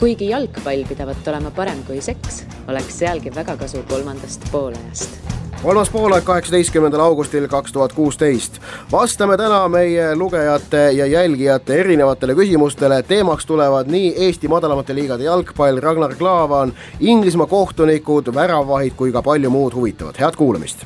Kuigi jalgpall pidavat olema parem kui seks, oleks sealgi väga kasu kolmandast poolajast. Kolmas poolaeg 18. augustil 2016. Vastame täna meie lugejate ja jälgijate erinevatele küsimustele. Teemaks tulevad nii Eesti madalamate liigade jalgpall, Ragnar Klavan, Inglismaa kohtunikud, väravahid kui ka palju muud huvitavat. Head kuulamist!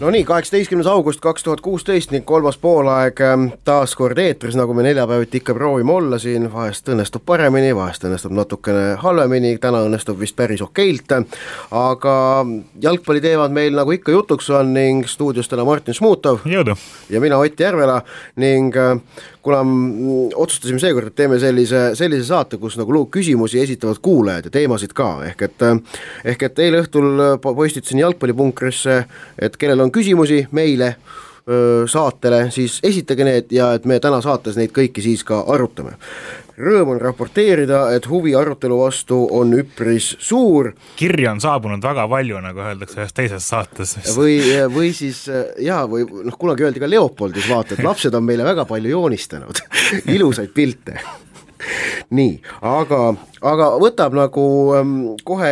No nii, 18. august 2016 ning kolmas poolaeg taas kord eetris, nagu me neljapäeviti ikka proovime olla siin, vahest õnnestub paremini, vahest õnnestub natukene halvemini, täna õnnestub vist päris okeilt, aga jalgpalli teevad meil nagu ikka jutuks on ning stuudios täna Martin Šmutov Jõudu. Ja mina Ott Järvela ning kuna otsustasime seekord, et teeme sellise saate, kus nagu küsimusi esitavad kuulajad ja teemasid ka, ehk et eile õhtul postitasin jalgpallipunkrisse, et kellel on küsimusi meile saatele, siis esitage need ja et me täna saates neid kõiki siis ka arutame. Rõõm on raporteerida, et huvi arutelu vastu on üpris suur. Kirja on saabunud väga palju, nagu öeldakse ühes teises saates. Või siis, või kunagi öeldi ka Leopoldis vaata, et lapsed on meile väga palju joonistanud. Ilusaid pilte. Nii, aga võtab nagu kohe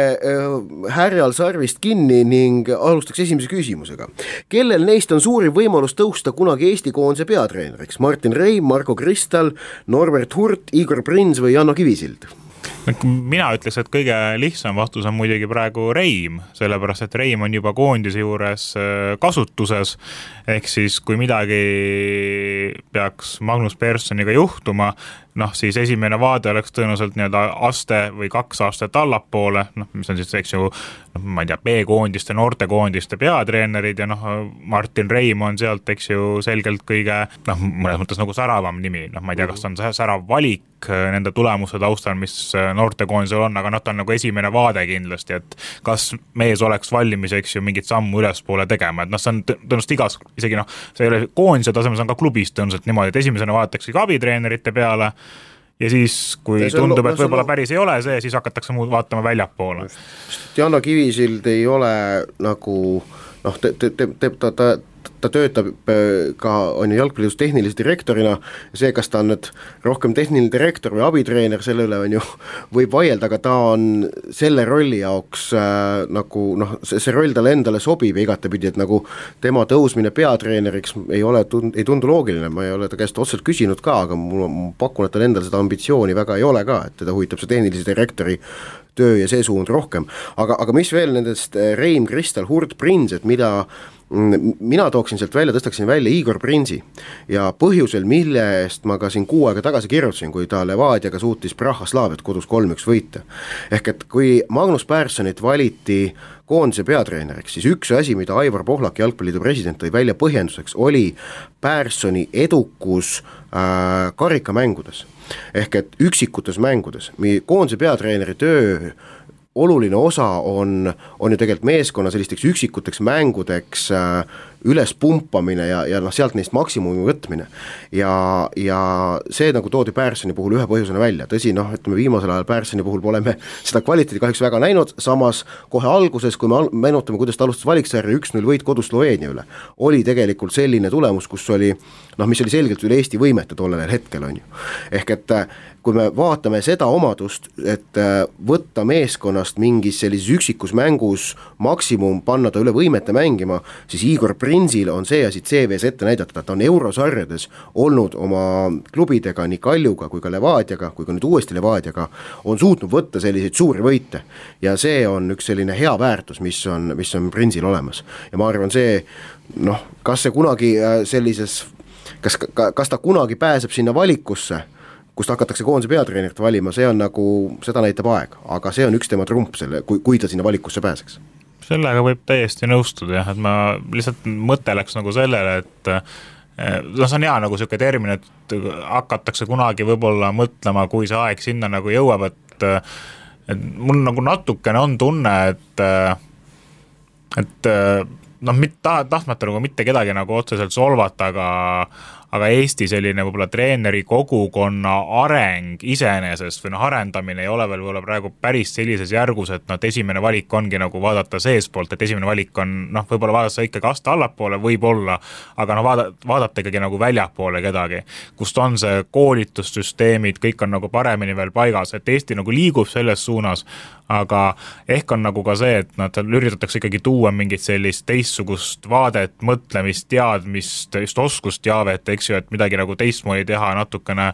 härjal sarvist kinni ning alustaks esimese küsimusega. Kellel neist on suuri võimalus tõusta kunagi Eesti koondise peatreeneriks? Martin Reim, Marko Kristal, Norbert Hurt, Igor Prins või Janno Kivisild? Mina ütleks, et kõige lihtsam vastus on muidugi praegu Reim, sellepärast et Reim on juba koondise juures kasutuses, ehk siis kui midagi peaks Magnus Perssoniga juhtuma, siis esimene vaade oleks tõenäoliselt aste või 2 aastat allapoole, mis on siis, eks ju, ma ei tea, B-koondiste, noortekoondiste peatreenerid ja Martin Reim on sealt, eks ju, selgelt kõige, mõnes mõttes nagu säravam nimi, ma ei tea, kas on särav valik nende tulemuse taustal, mis noortekoondisel on, aga ta on nagu esimene vaade kindlasti, et kas mees oleks valmis, eks ju, mingit sammu ülespoole tegema, et see on tõenäoliselt igas, isegi see ei ole koondise tasemel, see on ka klubis tõenäoliselt niimoodi, et esimesena vaadatakse ka abitreenerite peale ja siis, kui tundub, et võib-olla päris ei ole see, siis hakatakse muud vaatama väljapoole. Janno Kivisild ei ole nagu, ta töötab ka on jalgpalliliidus tehnilise direktorina ja see, kas ta on nüüd rohkem tehniline direktor või abitreener, selle üle on ju võib vaielda, aga ta on selle rolli jaoks see roll talle endale sobib ja igatepidi, et nagu tema tõusmine peatreeneriks ei tundu loogiline, ma ei ole ta käest otseselt küsinud ka, aga ma pakun, et tal endal seda ambitsiooni väga ei ole ka, et teda huvitab see tehnilise direktori töö ja see suund rohkem, aga mis veel nendest Reim, Kristal, Hurt, Prins, et mina tooksin sealt välja, tõstaksin välja Igor Prinsi ja põhjusel, mille eest ma ka siin 6 aega tagasi kirjutasin, kui ta Levadiaga suutis Prahaslaaviat kodus 3-1 võita. Ehk et kui Magnus Perssonit valiti koondise peatreeneriks, siis üks asi, mida Aivar Pohlak, jalgpalliliidu president, tõi välja põhjenduseks, oli Perssoni edukus karikamängudes. Ehk et üksikutes mängudes. Koondise peatreeneri töö oluline osa on ju tegelikult meeskonna sellisteks üksikuteks mängudeks üles pumpamine ja sealt neist maksimumi võtmine ja see nagu toodi Perssoni puhul ühe põhjusena välja, tõsi, ütleme viimasel ajal Perssoni puhul pole me seda kvaliteedi kahjuks väga näinud, samas kohe alguses, kui me meenutame, kuidas ta alustas valiksarja 1-0 võit kodus Sloveenia üle, oli tegelikult selline tulemus, kus oli, mis oli selgelt üle Eesti võimete tollel hetkel on ju, ehk et kui me vaatame seda omadust, et võtta meeskonnast mingis sellises üksikus mängus maksimum, panna ta üle võimete mängima, siis Igor Prinsil on see asi CV-s ette näidata, ta on eurosarjades olnud oma klubidega nii Kaljuga kui ka Levadiaga, kui ka nüüd uuesti Levadiaga, on suutnud võtta selliseid suuri võite ja see on üks selline hea väärtus, mis on Prinsil olemas ja ma arvan see, kas see kunagi sellises, kas ta kunagi pääseb sinna valikusse, kust hakatakse koondise peatreenerit valima, see on nagu, seda näitab aeg, aga see on üks tema trump, kui ta sinna valikusse pääseks. Sellega võib täiesti nõustuda, et ma lihtsalt mõte läks nagu sellele, et see on hea nagu selline termin, et hakatakse kunagi võib-olla mõtlema, kui see aeg sinna nagu jõuab, et mul nagu natukene on tunne, et tahtmata nagu mitte kedagi nagu otseselt solvata, aga Eesti selline võib-olla treeneri kogukonna areng iseenesest või arendamine ei ole veel võib-olla praegu päris sellises järgus, et esimene valik ongi nagu vaadata seespoolt, et esimene valik on võib-olla vaadata ikkagi aasta allapoole võib-olla, aga vaadata ikkagi nagu väljapoole kedagi, kust on see koolitussüsteemid, kõik on nagu paremini veel paigas, et Eesti nagu liigub selles suunas, aga ehk on nagu ka see, et nad üritatakse ikkagi tuua mingit sellist teistsugust vaadet, mõtlemist, teadmist, just oskusteavet, eks ju, et midagi nagu teistmoodi teha, natukene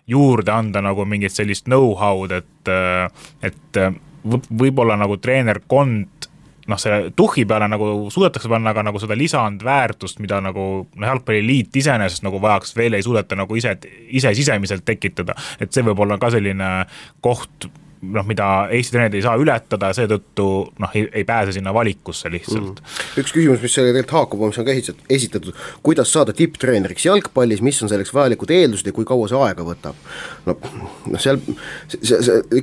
juurde anda nagu mingit sellist know-how'd, et võib-olla nagu treenerkond selle tuhhi peale nagu suudetakse panna, aga nagu seda lisandväärtust, mida nagu jalgpalliliit iseenesest nagu vajaks, veel ei suudeta nagu ise sisemiselt tekitada, et see võib olla ka selline koht, mida Eesti treenerid ei saa ületada, seetõttu ei pääse sinna valikusse lihtsalt. Üks küsimus, mis selle tegelikult haakub, mis on ka esitatud, kuidas saada tipptreeneriks jalgpallis, mis on selleks vajalikud eeldused ja kui kaua see aega võtab? Seal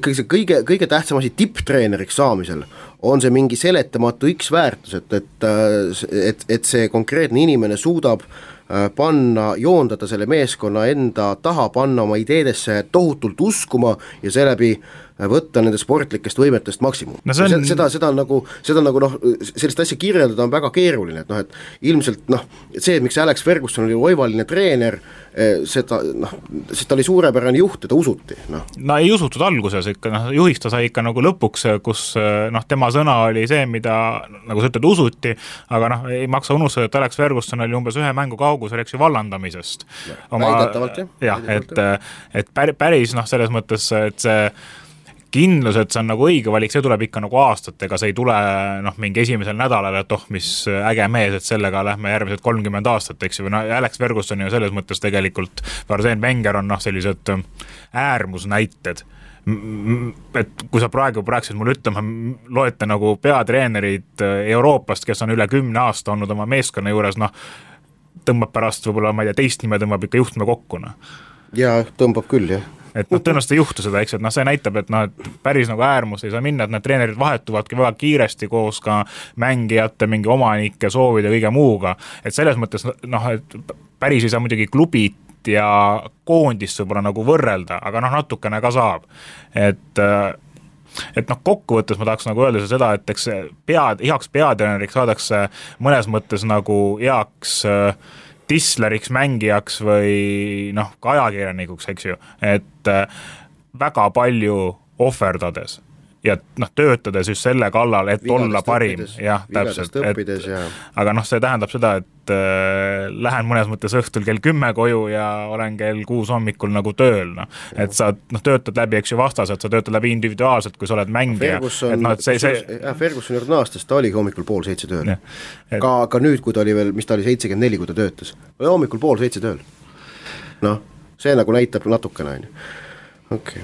ikkagi see kõige tähtsam asi tipptreeneriks saamisel on see mingi seletamatu X-väärtus, et see konkreetne inimene suudab joondada selle meeskonna enda taha, panna oma ideedesse tohutult uskuma ja seeläbi võtta nende sportlikest võimetest maksimum. Seda sellist asja kirjeldada on väga keeruline, et ilmselt see, miks Alex Ferguson oli oivaline treener, seda oli suurepärane juht, teda usuti. Ei usutud alguses ikka, juhiks ta sai ikka nagu lõpuks, kus tema sõna oli see, mida nagu sa ütled, usuti, aga ei maksa unustada, et Alex Ferguson oli umbes ühe mängu kaugus, oleks ju vallandamisest. Väidetavalt, jah. Et päris selles mõttes, et see kindlus, et see on nagu õige valik, see tuleb ikka nagu aastatega, see ei tule mingi esimesel nädalal, et mis äge mees, et sellega lähme järgmised 30 aastat, eks ju, Alex Ferguson ju selles mõttes tegelikult, Arsène Wenger on sellised äärmusnäited, et kui sa praegu praegused mulle ütlema, loete nagu peatreenerid Euroopast, kes on üle 10 aasta olnud oma meeskonna juures, tõmbab pärast võib-olla, ma ei tea, teist nime tõmbab ikka juhtme kokku. Jaa, tõmbab küll, jah. Et tõenäoliselt ei juhtu seda, eks, et see näitab, et päris nagu äärmus ei saa minna, et need treenerid vahetuvadki väga kiiresti koos ka mängijate, mingi omanike soovide ja kõige muuga, et selles mõttes, et päris ei saa muidugi klubit ja koondist võib-olla nagu võrrelda, aga natukene ka saab, et kokkuvõttes ma tahaks nagu öelda seda, et eks heaks peatreeneriks saadakse mõnes mõttes nagu heaks tisleriks, mängijaks või ka ajakirjanikuks, eks ju, et väga palju ohverdades ja töötades just selle kallal, et olla parim. Jah, täpselt. Aga see tähendab seda, et lähen mõnes mõttes õhtul kell 10 koju ja olen kell 6 hommikul nagu tööl. Et sa töötad läbi, eks ju, vastased, sa töötad läbi individuaalselt, kui sa oled mängija. Ferguson juurde aastas, ta oligi hommikul 6:30 tööl. Ka nüüd, kui ta oli veel, mis ta oli 74, kui ta töötas. Oli hommikul 6:30 tööl. See nagu näitab natukene. Okay.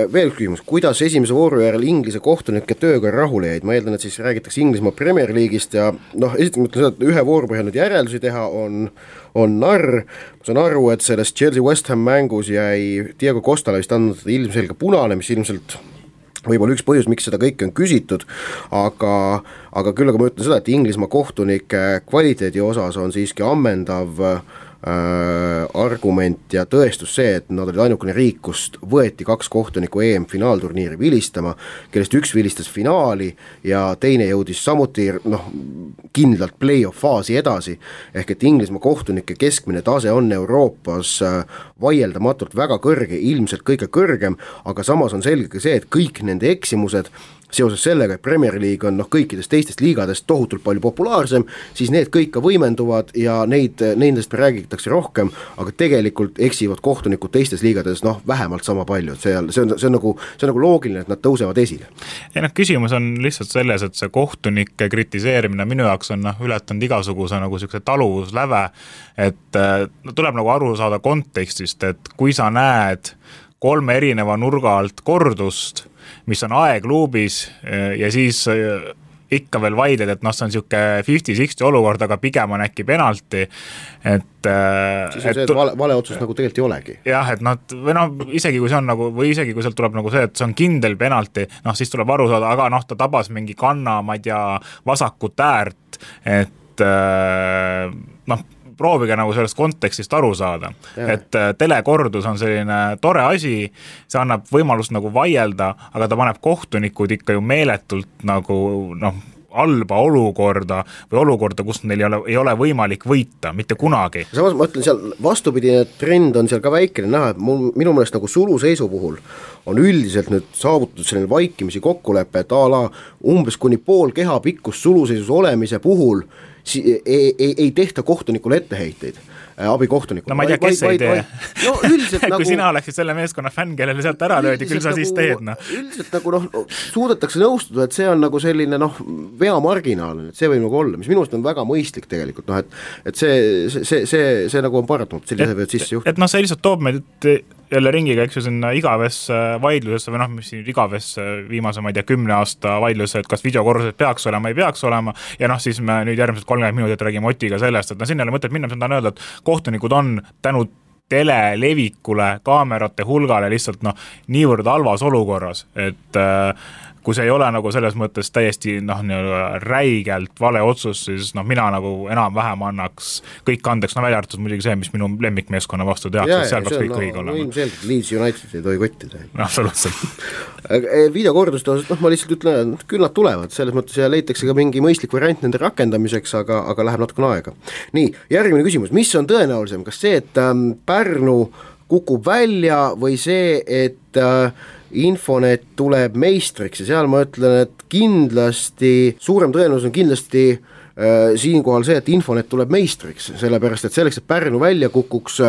Veel küsimus, kuidas esimese vooru järel Inglise kohtunike tööga rahule jäid? Ma eeldan, et siis räägitakse Inglismaa Premier League'ist ja esiteks mõtlen seda, et ühe vooru põhjal nüüd järeldusi teha on narr. Ma saan aru, et selles Chelsea West Ham mängus jäi Diego Costale vist andnud ilmselge punane, mis ilmselt võib-olla üks põhjus, miks seda kõike on küsitud, aga küll aga ma ütlen seda, et Inglismaa kohtunike kvaliteedi osas on siiski ammendav argument ja tõestus see, et nad olid ainukene riik, kust võeti 2 kohtunikku EM-finaalturniiri vilistama, kellest üks vilistas finaali ja teine jõudis samuti kindlalt play-off faasi edasi, ehk et Inglismaa kohtunike keskmine tase on Euroopas vaieldamatult väga kõrge, ilmselt kõige kõrgem, aga samas on selge ka see, et kõik nende eksimused seoses sellega, et Premier League on kõikidest teistest liigadest tohutult palju populaarsem, siis need kõik ka võimenduvad ja nendest räägitakse rohkem, aga tegelikult eksivad kohtunikud teistes liigades vähemalt sama palju, et see on nagu loogiline, et nad tõusevad esile. Ja küsimus on lihtsalt selles, et see kohtunike kritiseerimine minu jaoks on ületanud igasuguse nagu sellise taluvusläve, et tuleb nagu aru saada kontekstist, et kui sa näed 3 erineva nurga alt kordust, mis on aegluubis ja siis ikka veel vaidled, et see on siuke 50-60 olukord, aga pigem on äkki penalti, et siis on see, et vale otsust nagu tegelikult ei olegi. Jah, et isegi kui see on nagu, või isegi kui sealt tuleb nagu see, et see on kindel penalti, siis tuleb aru saada, aga ta tabas mingi kanna, ma ei tea, vasakut äärt, et proovige nagu sellest kontekstist aru saada, et telekordus on selline tore asi, see annab võimalust nagu vaielda, aga ta paneb kohtunikud ikka ju meeletult nagu halba olukorda või olukorda, kus neil ei ole võimalik võita, mitte kunagi. Samas ma ütlen, seal vastupidine trend on seal ka väikene näha, et minu meelest nagu suluseisu puhul on üldiselt nüüd saavutatud selline vaikimisi kokkulepe, et umbes kuni pool keha pikkust suluseisus olemise puhul ei tehta kohtunikule etteheiteid, abikohtunikule. No ma ei tea, kes ei tee. No üldiselt kui sina oleksid selle meeskonna fänn, kellele sealt ära löödi, küll sa siis teed. Üldiselt nagu suudetakse nõustuda, et see on nagu selline veamarginaal, et see võib nagu olla, mis minust on väga mõistlik tegelikult, et see nagu on paratamatu, sellise võivad sisse juhtuda. Et see lihtsalt toob meid jälle ringiga, eks ju, sinna igavesse vaidlusesse või mis siin igavesse viimase, ma ei tea, 10 aasta vaidlusse, et kas videokorrused peaks olema, ei peaks olema ja siis me nüüd järgmised 30 minutit räägime Otiga sellest, et sinna ei ole mõtet minna, mis on tahan öelda, et kohtunikud on tänu telelevikule, kaamerate hulgale lihtsalt niivõrd halvas olukorras, et kui see ei ole nagu selles mõttes täiesti räigelt vale otsus, siis mina nagu enam-vähem annaks kõik andeks, välja arvatud muidugi see, mis minu lemmikmeeskonna vastu tehakse, seal peaks kõik õige olema. Ilmselgelt Leeds United ei tohi kottida. Absoluutselt. Videokorduste osas, ma lihtsalt ütlen, küll nad tulevad, selles mõttes ja leitakse ka mingi mõistlik variant nende rakendamiseks, aga läheb natukene aega. Nii, järgmine küsimus, mis on tõenäolisem, kas see, et Pärnu kukub välja või see, et Infonet tuleb meistriks ja seal ma ütlen, et kindlasti, suurem tõenäosus on kindlasti siinkohal see, et Infonet tuleb meistriks, sellepärast et selleks, et Pärnu välja kukuks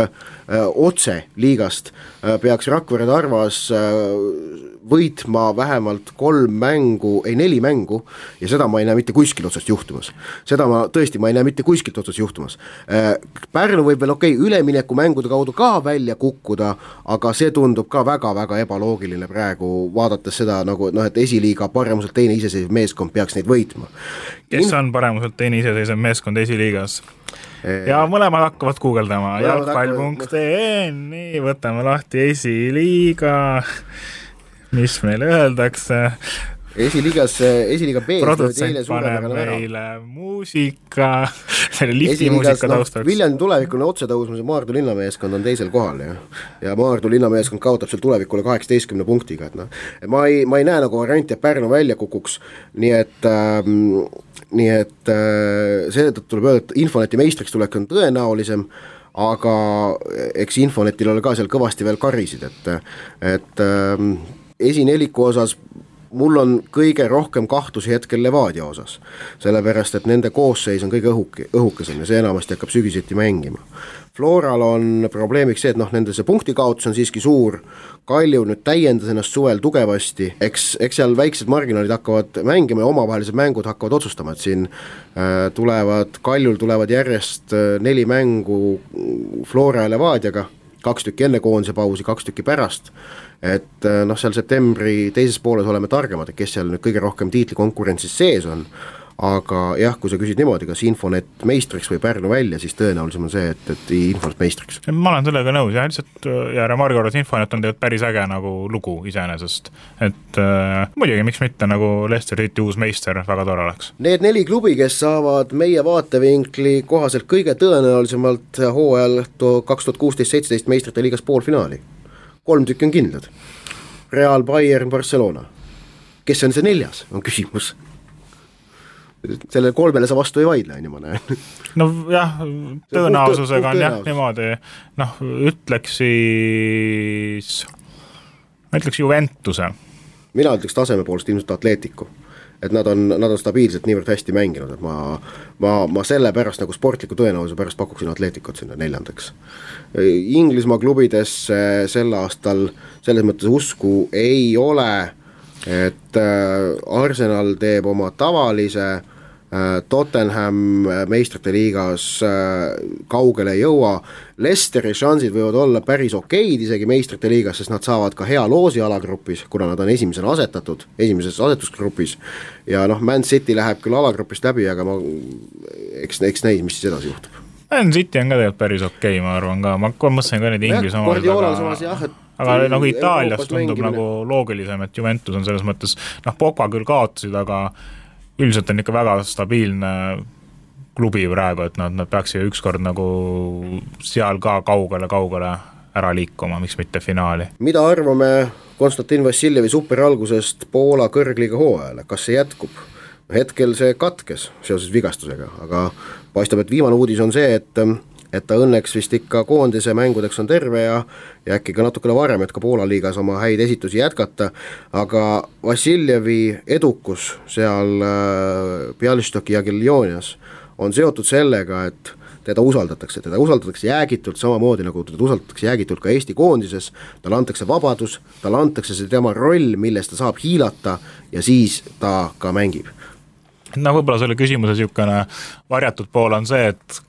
otse liigast, peaks Rakvere Tarvas võitma vähemalt 4 mängu ja seda ma ei näe mitte kuskil otsast juhtumas. Seda ma ei näe mitte kuskilt otsast juhtumas. Pärnu võib veel ülemineku mängude kaudu ka välja kukkuda, aga see tundub ka väga-väga ebaloogiline praegu, vaadates seda nagu, et esiliiga paremuselt teine iseseisev meeskond peaks neid võitma. Kes on paremuselt teine iseseisev meeskond esiliigas? Ja mõlemad hakkavad guugeldama jalgpall.ee, nii, võtame lahti esiliiga, mis meile öeldakse. Esiliiga B. Produtsent paneb meile muusika, selle lifti muusika taustaks. Viljandi tulevikune otsetõusmise Maardu linnameeskond on teisel kohal ja Maardu linnameeskond kaotab seal tulevikule 18 punktiga. Et ma ei näe nagu varianti, et Pärnu välja kukuks, nii et seetõttu tuleb öelda, et Infoneti meistriks tulek on tõenäolisem, aga eks Infonetil ole ka seal kõvasti veel karisid, et esineliku osas mul on kõige rohkem kahtlusi hetkel Levadia osas, sellepärast, et nende koosseis on kõige õhukesem ja see enamasti hakkab sügiseti mängima. Floral on probleemiks see, et nende see punktikaotus on siiski suur, Kalju nüüd täiendas ennast suvel tugevasti, eks seal väiksed marginaalid hakkavad mängima ja omavahelised mängud hakkavad otsustama, et siin Kaljul tulevad järjest 4 mängu Flora ja Levadiaga, 2 tükki enne koondise pausi, 2 tükki pärast, et seal septembri teises pooles oleme targemad, et kes seal nüüd kõige rohkem tiitlikonkurentsis sees on, aga jah, kui sa küsid niimoodi, kas Infonet meistriks või Pärnu välja, siis tõenäolisem on see, et Infonet meistriks. Ma olen sellega nõus ja lihtsalt ja remargi korras Infonet on tegelikult päris äge nagu lugu iseenesest, et muidugi miks mitte nagu Leicester City uus meister väga tore oleks. Need 4 klubi, kes saavad meie vaatevinkli kohaselt kõige tõenäolisemalt hooajal 2016-17 meistrite liigas poolfinaali. 3 tükki on kindlad. Real, Bayern, Barcelona. Kes on see 4, on küsimus. Selle 3 sa vastu ei vaidle, ma näen. No jah, tõenäosusega on jah niimoodi, ütleks Juventuse. Mina ütleks taseme poolest ilmselt Atletico, et nad on stabiilselt niivõrd hästi mänginud, et ma selle pärast nagu sportliku tõenäosuse pärast pakuksin Atleticot sinna 4. Inglismaa klubides sel aastal selles mõttes usku ei ole, et Arsenal teeb oma tavalise, Tottenham meistrite liigas kaugele ei jõua, Leicesteri šansid võivad olla päris okeid isegi meistrite liigas, sest nad saavad ka hea loosi alagrupis, kuna nad on esimesena asetatud, esimeses asetusgrupis ja Man City läheb küll alagrupist läbi, aga eks näis, mis siis edasi juhtub. Man City on ka tegelikult päris okei, ma arvan ka, ma mõtlesin ka need Inglis omad, aga nagu Itaalias tundub nagu loogilisem, et Juventus on selles mõttes, Pogba küll kaotasid, aga üldiselt on ikka väga stabiilne klubi praegu, et nad peaks ju ükskord nagu seal ka kaugele ära liikuma, miks mitte finaali. Mida arvame Konstantin Vassiljevi superalgusest Poola kõrgliiga hooajale, kas see jätkub? Hetkel see katkes seoses vigastusega, aga paistab, et viimane uudis on see, et ta õnneks vist ikka koondise mängudeks on terve ja äkki ka natukene varem, et ka Poola liigas oma häid esitusi jätkata, aga Vassiljevi edukus seal Bialystoki ja Jagiellonias on seotud sellega, et teda usaldatakse jäägitult samamoodi, nagu teda usaldatakse jäägitult ka Eesti koondises, talle antakse vabadus, talle antakse see tema roll, milles ta saab hiilata ja siis ta ka mängib. No võib-olla selle küsimuse niisugune varjatud pool on see, et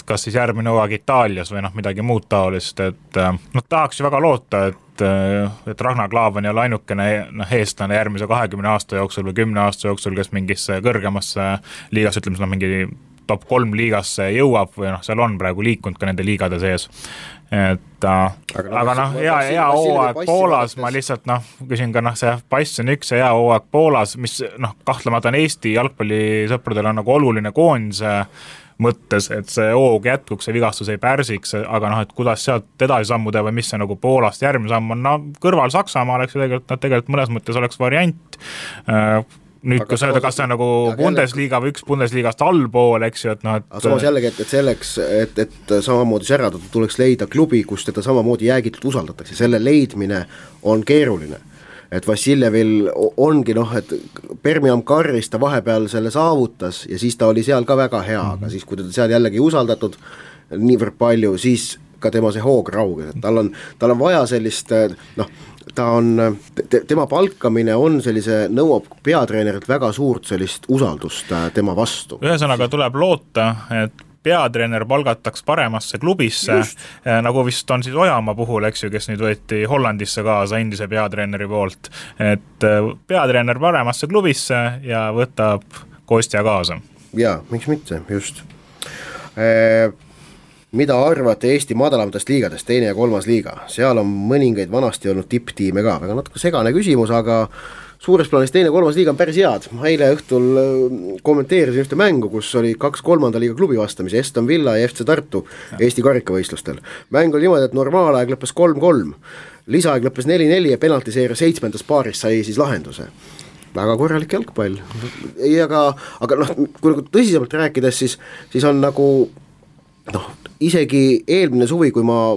kas siis järgmine hooaeg Itaalias või midagi muud taolist, et tahaks ju väga loota, et Ragnar Klavan ei ole ainukene eestlane järgmise 20 aasta jooksul või 10 aasta jooksul, kes mingisse kõrgemasse liigas, ütleme mingi top 3 liigasse jõuab või seal on praegu liikunud ka nende liigade sees. Et, aga hea hooaeg Poolas, ma lihtsalt küsin ka see pass on üks ja hea hooaeg Poolas, mis kahtlemata on Eesti jalgpallisõpradel on nagu oluline koondise mõttes, et see hoog jätkuks, see vigastus ei pärsiks, aga et kuidas sealt edasi sammuda või mis see nagu Poolast järgmine samm on, kõrval Saksamaa oleks ju tegelikult mõnes mõttes oleks variant. Nüüd, kui öelda, kas see on nagu Bundesliga või üks Bundesliigast allpool, eks ju, aga samas jällegi, et selleks, et samamoodi säradada, tuleks leida klubi, kus teda samamoodi jäägitult usaldatakse, selle leidmine on keeruline. Et Vassiljevil ongi et Birmingham Carris ta vahepeal selle saavutas ja siis ta oli seal ka väga hea, aga siis kui teda seal jällegi usaldatud niivõrd palju, siis ka tema see hoog rauges, et tal on vaja sellist, tema palkamine on nõuab peatreenerilt väga suurt sellist usaldust tema vastu. Ühesõnaga tuleb loota, et peatreener palgataks paremasse klubisse, nagu vist on siis Ojamaa puhul, eks ju, kes nüüd võeti Hollandisse kaasa endise peatreeneri poolt, et peatreener paremasse klubisse ja võtab Kostja kaasa. Jaa, miks mitte, just. Mida arvate Eesti madalamatest liigadest, 2. ja 3. liiga? Seal on mõningaid vanasti olnud tipptiime ka, väga natuke segane küsimus, aga suures plaanis 2. ja 3. liiga on päris head. Ma eile õhtul kommenteerisin ühte mängu, kus oli 2 3. liiga klubi vastamise, Aston Villa ja FC Tartu Eesti karikavõistlustel. Mäng oli niimoodi, et normaalaeg lõppes 3-3, lisaaeg lõppes 4-4 ja penaltiseeria 7. paaris sai siis lahenduse. Väga korralik jalgpall. Aga kui tõsisemalt rääkides, siis on nagu isegi eelmine suvi, kui ma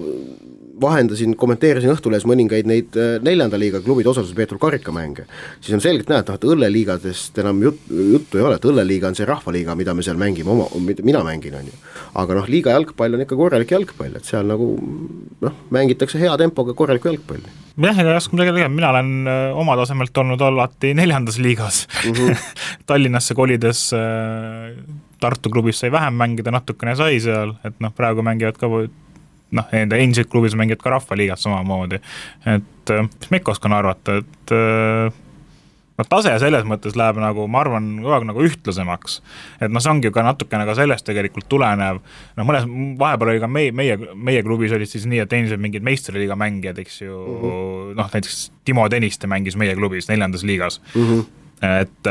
vahendasin, kommenteerisin Õhtulehes mõningaid neid 4. liiga klubide osalusel peetud karikamänge, siis on selgelt näha, et õlleliigadest enam juttu ei ole, et õlleliiga on see rahvaliiga, mida me seal mängime, mina mängin, on ju. Aga liiga jalgpall on ikka korralik jalgpall, et seal nagu mängitakse hea tempoga korralikku jalgpalli. Jah, ega jasku midagi tegema, mina olen oma tasemelt olnud alati 4. liigas. Tallinnasse kolides Tartu klubis sai vähem mängida, natukene sai seal, et praegu mängivad ka enda endised klubis mängivad ka rahvaliigat samamoodi, et mis ma ikka oskan arvata, et tase selles mõttes läheb ma arvan, nagu ühtlasemaks, et see ongi ka natukene ka sellest tegelikult tulenev, mõnes vahepeal oli ka meie klubis olid siis nii, et endised mingid meistriliiga mängijad, eks ju, näiteks Timo Tõniste mängis meie klubis 4. liigas, et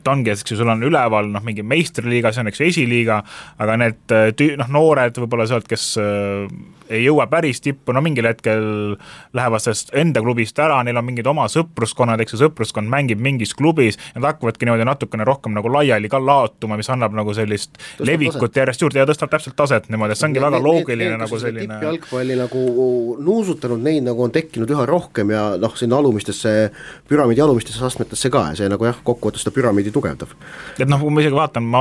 ongi, et sul on üleval mingi meistriliiga, see on eks esiliiga, aga need noored võib-olla sealt, kes ei jõua päris tippu, mingil hetkel lähevad sellest enda klubist ära, neil on mingid oma sõpruskonnad, eks sõpruskond mängib mingis klubis ja nad hakkavadki niimoodi natukene rohkem laiali ka laotuma, mis annab sellist tõstab levikut taset. Järjest juurde ja tõstab täpselt taset niimoodi, et see ongi väga loogiline selline tippjalgpalli nuusutanud, neid on tekkinud üha rohkem ja sinna alumistesse, püramiidi alumistesse astmetesse ka ja see kokkuvõttes seda püramiidi tugevdab. Et kui ma isegi vaatan, ma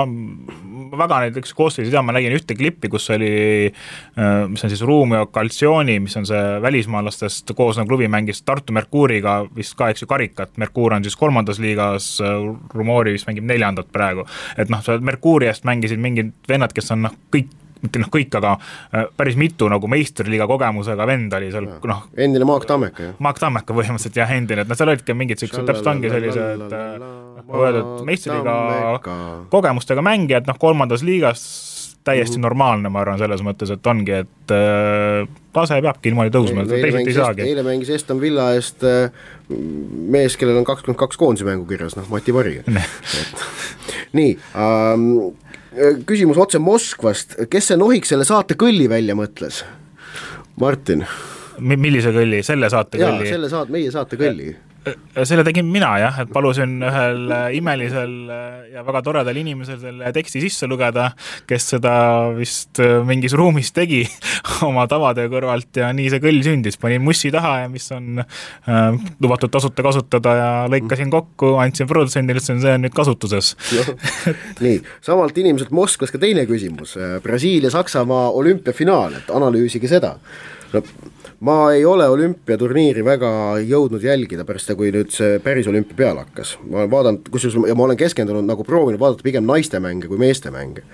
väga näiteks koostöös ma nägin ühte klippi, kus oli, mis on siis Rumio Calcioni, mis on see välismaalastest koosnev klubi mängis Tartu Merkuuriga vist ka, eks ju, karikat. Merkuur on siis 3. liigas, Rumori vist mängib 4. praegu. Et Merkuuriast mängisid mingid vennad, kes on kõik, aga päris mitu meistriliiga kogemusega vend oli seal, endine Maak Tammeka, jah? Maak Tammeka põhimõtteliselt, jah, endine, et seal olid ka mingid täpselt ongi sellised meistriliiga kogemustega mängijad, 3. liigas täiesti normaalne, ma arvan, selles mõttes, et ongi, et tase peabki niimoodi tõusma, teised ei saagi. Eile mängis Aston Villa eest mees, kellel on 22 koondise mängu kirjas, Mati Pari. nii, küsimus otse Moskvast, kes see nohiks selle saate kõlli välja mõtles? Martin. Millise kõlli? Selle saate kõlli? Jaa, selle meie saate kõlli. Selle tegin mina jah, et palusin ühel imelisel ja väga toredal inimesel selle teksti sisse lugeda, kes seda vist mingis ruumis tegi oma tavade kõrvalt ja nii see kõll sündis. Panin mussi taha ja mis on lubatud tasuta kasutada ja lõikasin kokku, andsin produtsendile, see on nüüd kasutuses. Nii, samalt inimeselt Moskvas ka teine küsimus. Brasiilia-Saksamaa olümpiafinaal, et analüüsige seda. No, ma ei ole olümpiaturniiri väga jõudnud jälgida pärast seda, kui nüüd see päris olümpia peale hakkas. Ma olen vaadanud, ja ma olen keskendunud nagu proovinud vaadata pigem naiste mänge kui meeste mänge.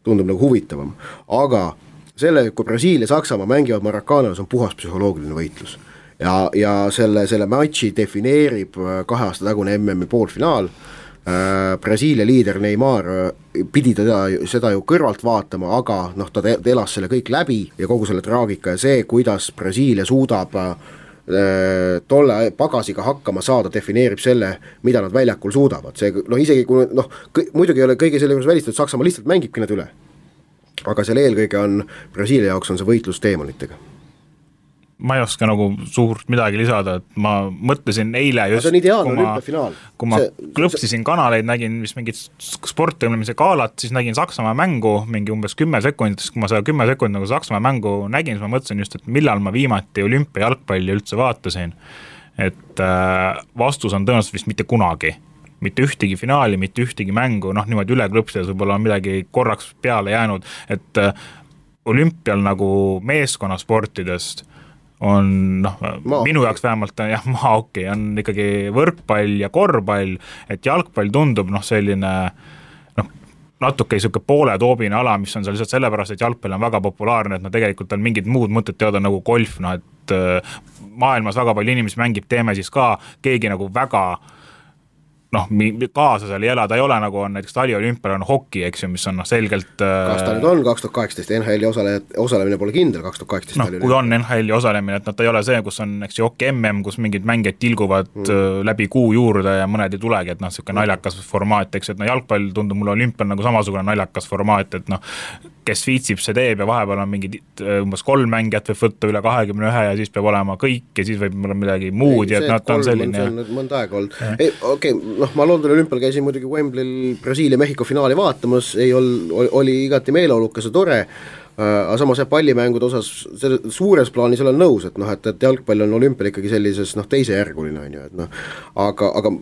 Tundub nagu huvitavam. Aga selle, kui Brasiilia ja Saksamaa mängivad Maracana's, on puhas psühholoogiline võitlus. Ja selle matši defineerib 2 aasta tagune MM-i poolfinaal. Brasiilia liider Neymar pidi seda ju kõrvalt vaatama, aga ta elas selle kõik läbi ja kogu selle traagika ja see, kuidas Brasiilia suudab tolle pagasiga hakkama saada, defineerib selle, mida nad väljakul suudavad. See, isegi kui muidugi ei ole kõige selle juures välistatud, Saksamaa lihtsalt mängibki need üle. Aga selle eelkõige on Brasiilia jaoks on see võitlus teemonitega. Ma ei oska nagu suurt midagi lisada, et ma mõtlesin eile just, kui ma klõpsisin kanaleid, nägin mis mingit sportõmlemise kaalat, siis nägin Saksamaa mängu mingi umbes 10 sekundit, kui ma seda 10 sekundit nagu Saksamaa mängu nägin, siis ma mõtlesin just, et millal ma viimati olümpia jalgpalli üldse vaatasin, et vastus on tõenäoliselt vist mitte kunagi. Mitte ühtegi finaali, mitte ühtegi mängu, niimoodi üle klõpsides võib-olla on midagi korraks peale jäänud, et olümpial nagu meeskonnasportidest on minu jaoks vähemalt maahoki, on ikkagi võrkpall ja korvpall, et jalgpall tundub selline natuke selline poole toobine ala, mis on seal lihtsalt sellepärast, et jalgpall on väga populaarne, et tegelikult on mingid muud mõtted teada nagu golf, et maailmas väga palju inimesi mängib, teeme siis ka keegi nagu väga kaasa seal ei ela, ta ei ole nagu on näiteks taliolümpial on hoki, eks ju, mis on selgelt kas ta nüüd on 2018, NHL-i osalemine pole kindel 2018 kui on NHL-i osalemine, et ta ei ole see, kus on eks ju hoki MM, kus mingid mängijad tilguvad läbi kuu juurde ja mõned ei tulegi, et selline naljakas formaat, eks, et jalgpall tundub mulle olümpial nagu samasugune naljakas formaat, et kes viitsib, see teeb ja vahepeal on mingid umbes 3 mängijat võib võtta üle 21 ja siis peab olema kõik ja siis võib olla midagi muud ja et ta on selline mõnda aega olnud. Ma Londoni olümpial käisin muidugi Wembley'l Brasiilia-Mehhiko finaali vaatamas, oli igati meeleolukas ja tore, aga samas pallimängude osas suures plaanis olen nõus, et jalgpall on olümpial ikkagi sellises teisejärguline on ju, et aga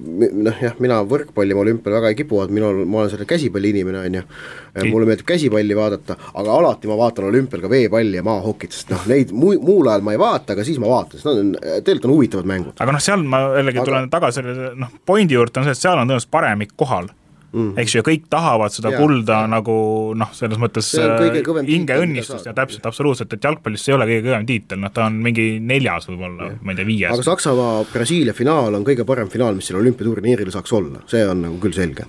mina võrkpalli ma olümpial väga ei kipu, et ma olen selle käsipalli inimene on ju, mulle meeldib käsipalli vaadata, aga alati ma vaatan olümpial ka veepalli ja maahokit, sest neid muul ajal ma ei vaata, aga siis ma vaatan, sest tegelikult on huvitavad mängud. Aga seal ma jällegi tulen tagasi pointi juurde on see, et seal on tõenäoliselt paremik kohal. Eks ju, ja kõik tahavad seda kulda nagu selles mõttes hinge õnnistust ja täpselt, absoluutselt, et jalgpallis ei ole kõige kõvem tiitel, ta on mingi 4. võib-olla, ma ei tea 5. Aga Saksamaa-Brasiilia finaal on kõige parem finaal, mis seal olümpiaturniiril saaks olla, see on nagu küll selge.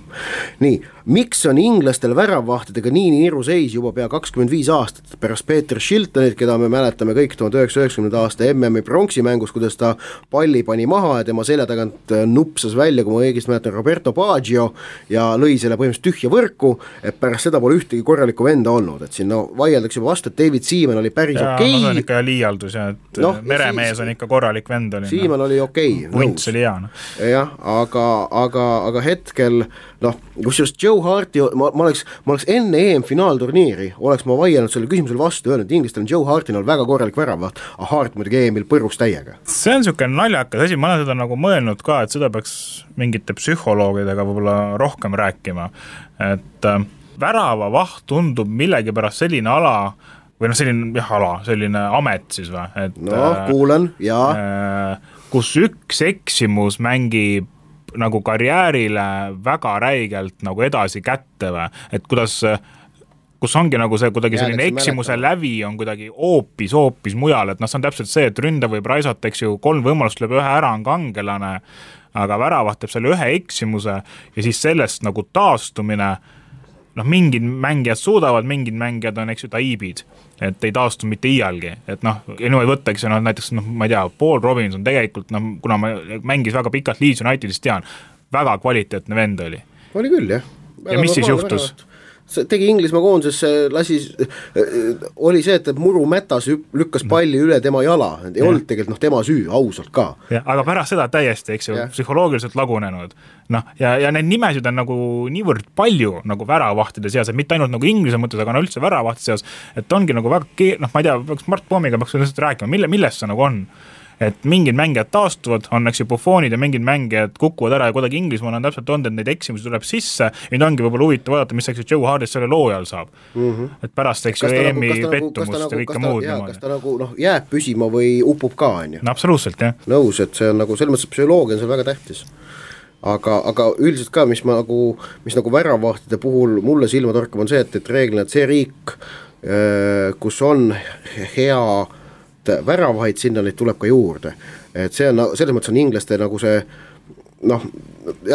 Nii, miks on inglastel väravvahtidega nii niru seis juba pea 25 aastat pärast Peter Shiltonit, keda me mäletame kõik 1990. aasta MM-i pronksi mängus, kuidas ta palli pani maha ja tema selja tagant nupsas välja, kui ma õigesti mäletan, Roberto Baggio ja lõi selle põhimõtteliselt tühja võrku, et pärast seda pole ühtegi korralikku venda olnud, et siin vaieldakse juba vastu, et David Seaman oli päris okei. See on ikka liialdus ja et meremees on ikka korralik vend oli. Seaman oli okei. Vunts oli hea. Jah, aga hetkel, kus just Joe Harti, ma oleks enne EM-finaalturniiri, oleks ma vaielnud selle küsimusele vastu, öelnud, et inglastel on Joe Hartil väga korralik väravaht, aga Hart muidugi EM-il põrus täiega. See on niisugune naljakas asi, ma olen seda nagu mõelnud ka, et seda peaks mingite psühholoogidega võib-olla rohkem rääkima, et väravavaht tundub millegipärast selline ala, või selline amet siis või, et kuulen, jaa. Kus üks eksimus mängib nagu karjäärile väga räigelt nagu edasi kätte või, et kus ongi nagu see kuidagi selline eksimuse lävi on kuidagi hoopis mujal, et see on täpselt see, et ründa võib raisata, eks ju, 3 võimalust lööb ühe ära on kangelane, aga väravaht teeb selle ühe eksimuse ja siis sellest nagu taastumine, mingid mängijad suudavad, mingid mängijad on, eks ju, taiibid, et ei taastu mitte iialgi, et ei võtta, eks ju, näiteks, ma ei tea, Paul Robinson tegelikult, kuna ma mängis väga pikalt Leeds Unitedist tean, väga kvaliteetne vend oli. Oli küll, jah. Ja mis siis juhtus? See tegi Inglismaa koonduses, oli see, et Muru Mätas lükkas palli üle tema jala, ei olnud tegelikult tema süü, ausalt ka. Aga pärast seda täiesti, eks ju, psühholoogiliselt lagunenud. Ja need nimesid on nagu niivõrd palju nagu väravahtide seas, et mitte ainult nagu Inglise mõttes, aga üldse väravahtide seas, et ongi nagu väga, ma ei tea, Mart Poomiga peaks rääkima, millest see nagu on? Et mingid mängijad taastuvad, on eks ju Buffonid ja mingid mängijad kukuvad ära ja kuidagi Inglismaal on täpselt olnud, et neid eksimusi tuleb sisse ja ongi võib-olla huvitav vaadata, mis eks ju Joe Hardist selle loo ajal saab. Et pärast eks ju EM-i pettumust ja kõike muud. Kas ta nagu jääb püsima või upub ka, on ju? No absoluutselt, jah. Nõus, et see on nagu, selles mõttes psühholoogia on seal väga tähtis. Aga üldiselt ka, mis nagu väravahtide puhul mulle silma torkab, on see, et reeglina, et see riik, kus on hea väravaid, sinna neid tuleb ka juurde. Et see on, selles mõttes on inglaste nagu see, jah,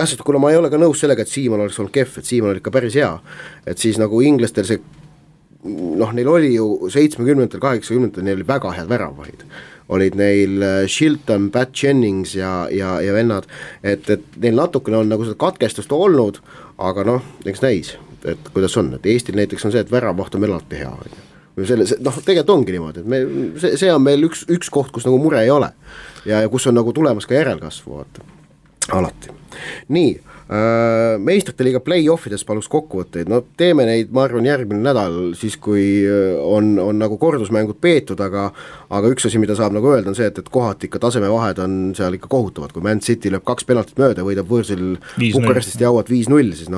sest kuna ma ei ole ka nõus sellega, et Siimann oleks olnud kehv, et Siimann oli ikka päris hea, et siis nagu inglastel see, neil oli ju 70-ndatel, 80-ndatel, neil oli väga head väravaid. Olid neil Shilton, Pat Jennings ja vennad, et neil natukene on nagu seda katkestust olnud, aga eks näis, et kuidas on, et Eestil näiteks on see, et väravaht on meil alati hea, tegelikult ongi niimoodi, et see on meil üks koht, kus nagu mure ei ole ja kus on nagu tulemas ka järelkasvu, alati. Nii, meistrite liiga play-offides paluks kokkuvõtteid, teeme neid, ma arvan, järgmine nädal, siis kui on nagu kordusmängud peetud, aga üks asi, mida saab nagu öelda, on see, et kohati ikka tasemevahed on seal ikka kohutavad, kui Man City lööb 2 penaltit mööda, võidab võõrsil Bukarestist jauad 5-0, siis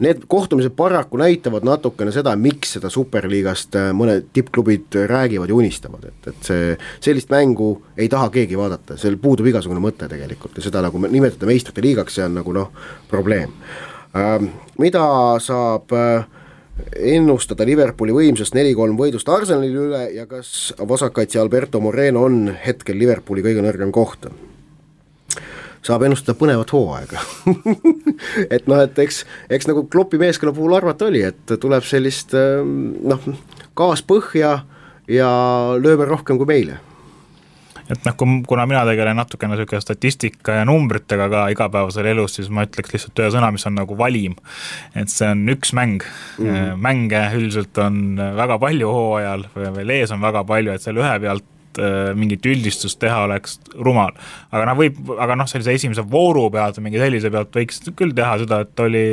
need kohtumised paraku näitavad natukene seda, miks seda superliigast mõned tippklubid räägivad ja unistavad, et see sellist mängu ei taha keegi vaadata, seal puudub igasugune mõte tegelikult ja seda nagu nimetada meistrite liigaks, see on nagu probleem. Mida saab ennustada Liverpooli võimsust 4-3 võidust Arsenali üle ja kas vasakkaitse Alberto Moreno on hetkel Liverpooli kõige nõrgem koht? Saab ennustada põnevat hooaega. et eks nagu Kloppi meeskonna puhul arvata oli, et tuleb sellist gaas põhja ja lööme rohkem kui meile. Et kuna mina tegelen natukene statistika ja numbritega ka igapäevasel elus, siis ma ütleks lihtsalt ühe sõna, mis on nagu valim. Et see on üks mäng. Mänge üldiselt on väga palju hooajal, veel ees on väga palju, et seal ühe pealt mingit üldistust teha oleks rumal. Aga sellise esimese vooru pealt või mingi sellise pealt võiks küll teha seda, et oli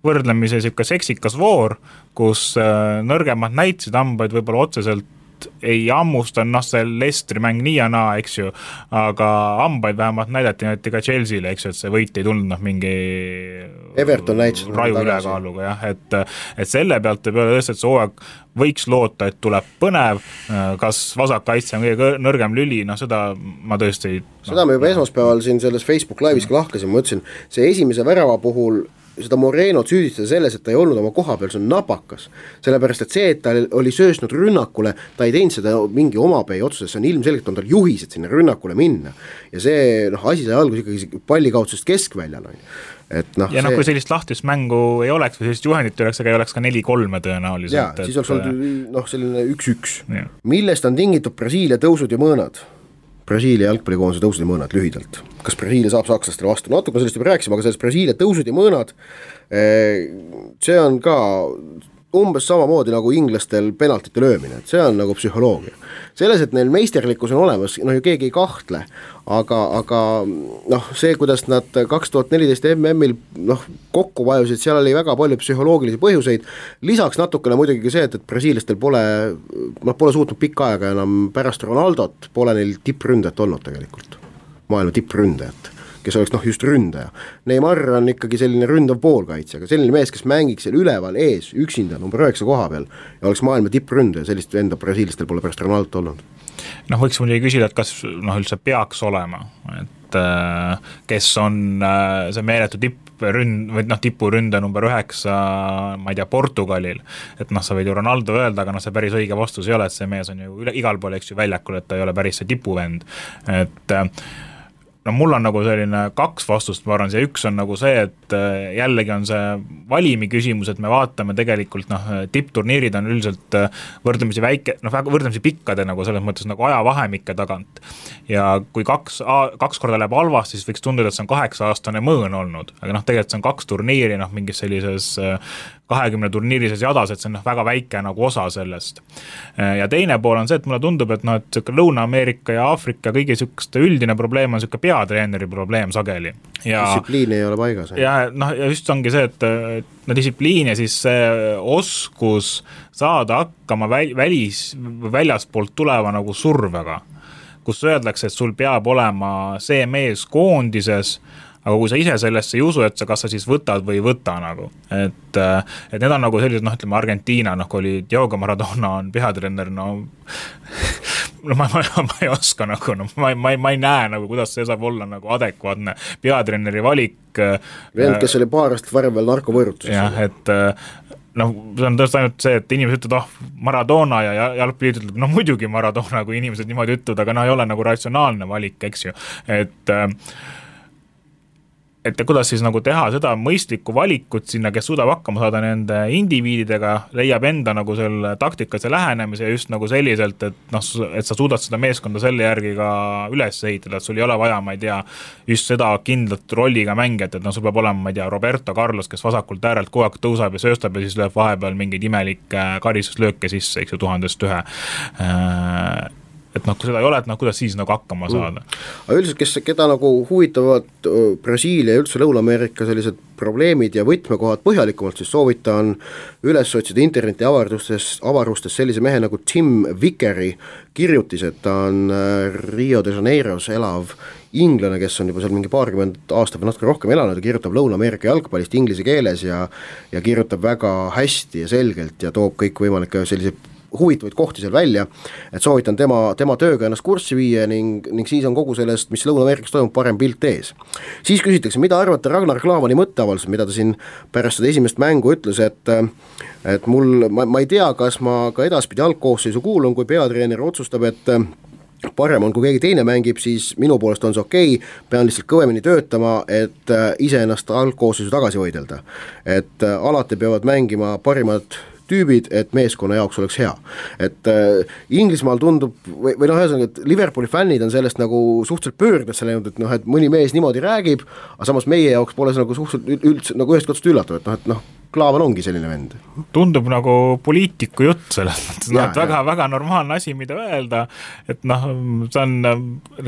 võrdlemise seksikas voor, kus nõrgemad näitasid hambaid võib-olla otseselt ei ammusta, see Leicesteri mäng nii ja naa, eks ju, aga hambaid vähemalt näidati ka Chelsea'le, eks ju, et see võit ei tulnud mingi Everton näitasid raju ülekaaluga, jah, et selle pealt ei peale tõesti, et see hooaeg võiks loota, et tuleb põnev, kas vasakkaitse on kõige nõrgem lüli, seda ma tõesti seda me juba esmaspäeval siin selles Facebook live'is ka lahkasin, ma ütlesin, see esimese värava puhul seda Morenot süüdistada selles, et ta ei olnud oma koha peal, see on napakas. Sellepärast, et see, et ta oli söösnud rünnakule, ta ei teinud seda mingi omapäi otsuses, see on ilmselgelt on tal juhised sinna rünnakule minna. Ja see asi sai algus ikkagi pallikaudsusest keskväljal. Kui sellist lahtist mängu ei oleks või sellist juhendit oleks, aga ei oleks ka 4-3 tõenäoliselt. Ja, siis oleks olnud selline 1-1. Millest on tingitud Brasiilia tõusud ja mõõnad? Brasiilia jalgpallikoondise tõusud ja mõõnad lühidalt. Kas Brasiilia saab sakslastele vastu? Natuke sellest juba rääkisime, aga sellest Brasiilia tõusud ja mõõnad, see on ka umbes samamoodi nagu inglastel penaltite löömine, et see on nagu psühholoogia. Selles, et neil meisterlikkus on olemas, ju keegi ei kahtle, aga see, kuidas nad 2014 MM-il kokku vajusid, seal oli väga palju psühholoogilisi põhjuseid, lisaks natukene muidugi see, et brasiilastel pole suutnud pikka aega enam pärast Ronaldot, pole neil tippründajat olnud tegelikult, maailma tippründajat, kes oleks just ründaja. Neymar on ikkagi selline ründav poolkaitse, aga selline mees, kes mängiks seal üleval ees, üksinda, number 9 koha peal ja oleks maailma tippründaja, sellist enda brasiilistel pole pärast Ronaldot olnud. Võiks muidugi küsida, et kas üldse peaks olema, et kes on see meeletu tipuründa number 9, ma ei tea, Portugalil, et sa võid ju Ronaldo öelda, aga see päris õige vastus ei ole, et see mees on ju igal pool, eks ju, väljakul, et ta ei ole päris see tipuvend, et no mul on nagu selline 2 vastust, ma arvan, see üks on nagu see, et jällegi on see valimi küsimus, et me vaatame tegelikult tippturniirid on üldiselt võrdlemisi väike, võrdlemisi pikkade nagu selles mõttes nagu ajavahemike tagant ja kui 2 korda läheb halvasti, siis võiks tunduda, et see on 8-aastane mõõn olnud, aga tegelikult see on 2 turniiri mingis sellises 20 turniirises jadas, et see on väga väike nagu osa sellest. Ja teine pool on see, et mulle tundub, et Lõuna-Ameerika ja Aafrika kõigi sükeste üldine probleem on sükke peatreeneri probleem sageli. Distsipliin ei ole paigas. Ja just ongi see, et distsipliin ja siis see oskus saada hakkama väljaspoolt tuleva nagu survega, kus öeldakse, et sul peab olema see mees koondises, aga kui sa ise sellesse ei usu, et kas sa siis võtad või ei võta nagu. Et need on nagu sellised, ütleme Argentiina, kui oli Diego Maradona on peatreener, ma ei oska nagu, ma ei näe nagu, kuidas see saab olla nagu adekvaatne peatreeneri valik. Vend, kes oli paar aastat varem veel narkovõõrutuses. Jah, et see on tõesti ainult see, et inimesed ütlevad, Maradona ja jalgpalliit ütleb, muidugi Maradona, kui inimesed niimoodi ütlevad, aga ei ole nagu ratsionaalne valik, eks ju, et kuidas siis nagu teha seda mõistlikku valikut sinna, kes suudab hakkama saada nende indiviididega, leiab enda nagu selle taktikas ja lähenemise ja just nagu selliselt, et sa suudad seda meeskonda selle järgi ka üles ehitada, et sul ei ole vaja, ma ei tea, just seda kindlat rolliga mängijat, et sul peab olema, ma ei tea, Roberto Carlos, kes vasakult äärelt kogu aeg tõusab ja sööstab ja siis lööb vahepeal mingeid imelikke karistuslööke sisse, eks ju, 1001. Et kui seda ei ole, et kuidas siis nagu hakkama saada. Aga üldiselt, keda nagu huvitavad Brasiilia ja üldse Lõuna-Ameerika sellised probleemid ja võtmekohad põhjalikumalt, siis soovitan üles otsida interneti avarustes sellise mehe nagu Tim Vickeri kirjutised, ta on Rio de Janeiros elav inglane, kes on juba seal mingi 20 aastat või natuke rohkem elanud ja kirjutab Lõuna-Ameerika jalgpallist inglise keeles ja kirjutab väga hästi ja selgelt ja toob kõik võimalikke selliseid huvitavaid kohti seal välja, et soovitan tema tööga ennast kurssi viia ning siis on kogu sellest, mis Lõuna-Ameerikas toimub, parem pilt ees. Siis küsitakse, mida arvate Ragnar Klavani mõtteavaldused, mida ta siin pärast seda esimest mängu ütles, et ma ei tea, kas ma ka edaspidi algkoosseisu kuulun, kui peatreener otsustab, et parem on, kui keegi teine mängib, siis minu poolest on see okei, pean lihtsalt kõvemini töötama, et ise ennast algkoosseisu tagasi võidelda. Et alati peavad mängima parimad tüübid, et meeskonna jaoks oleks hea. Et Inglismaal tundub, või ühesõnaga, et Liverpooli fännid on sellest nagu suhteliselt pöördes läinud, et mõni mees niimoodi räägib, aga samas meie jaoks pole see nagu suhteliselt üldse nagu ühest katsust üllatav, et Klaavan ongi selline vend. Tundub nagu poliitiku jutt selles mõttes, väga normaalne asi, mida öelda, et see on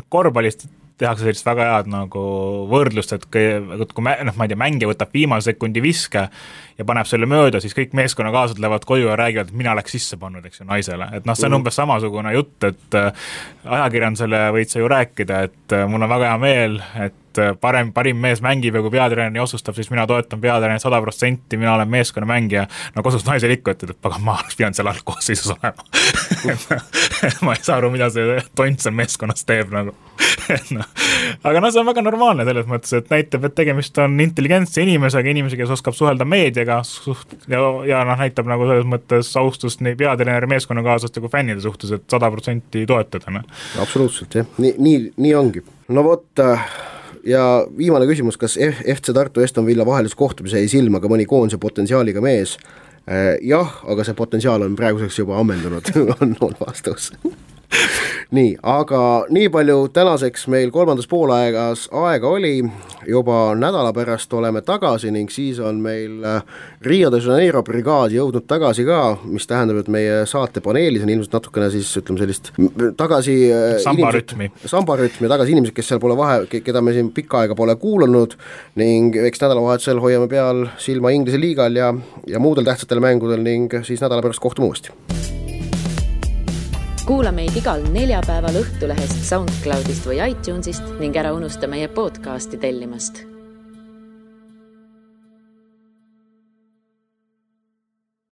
korvpallist tehakse sellist väga head nagu võrdlust, et kui ma ei tea, mängija võtab viimase sekundi viske ja paneb selle mööda, siis kõik meeskonnakaaslased lähevad koju ja räägivad, et mina oleks sisse pannud, eks ju, naisele. Et see on umbes samasugune jutt, et ajakirjandusele võid sa ju rääkida, et mul on väga hea meel, et parim mees mängib ja kui peatreener otsustab, siis mina toetan peatreener 100%, mina olen meeskonna mängija. Kosus naisel ikka ütled, et ma oleks pidanud seal algkoosseisus olema. Ma ei saa aru, mida see tont seal meeskonnas teeb nagu. Aga see on väga normaalne selles mõttes, et näitab, et tegemist on intelligentse inimesega, kes oskab suhelda meediaga ja näitab nagu selles mõttes austust nii peatreeneri meeskonnakaaslaste kui fännide suhtes, et 100% toetada. Absoluutselt, jah. Nii ongi. No vot, ja viimane küsimus, kas FC Tartu Aston Villa vahelise kohtumise jäi silma ka mõni koondise potentsiaaliga mees? Jah, aga see potentsiaal on praeguseks juba ammendunud, on vastus. Nii, aga nii palju tänaseks meil kolmandas poolaegas aega oli, juba nädala pärast oleme tagasi ning siis on meil Rio de Janeiro brigaad jõudnud tagasi ka, mis tähendab, et meie saate paneelis on ilmselt natukene siis, ütleme sellist tagasi sambarütmi ja tagasi inimesed, kes seal pole keda me siin pikka aega pole kuulanud ning eks nädalavahetusel hoiame peal silma Inglise liigal ja muudel tähtsatel mängudel ning siis nädala pärast kohtume uuesti. Kuula meid igal neljapäeval Õhtulehest, SoundCloudist või iTunesist ning ära unusta meie podcasti tellimast.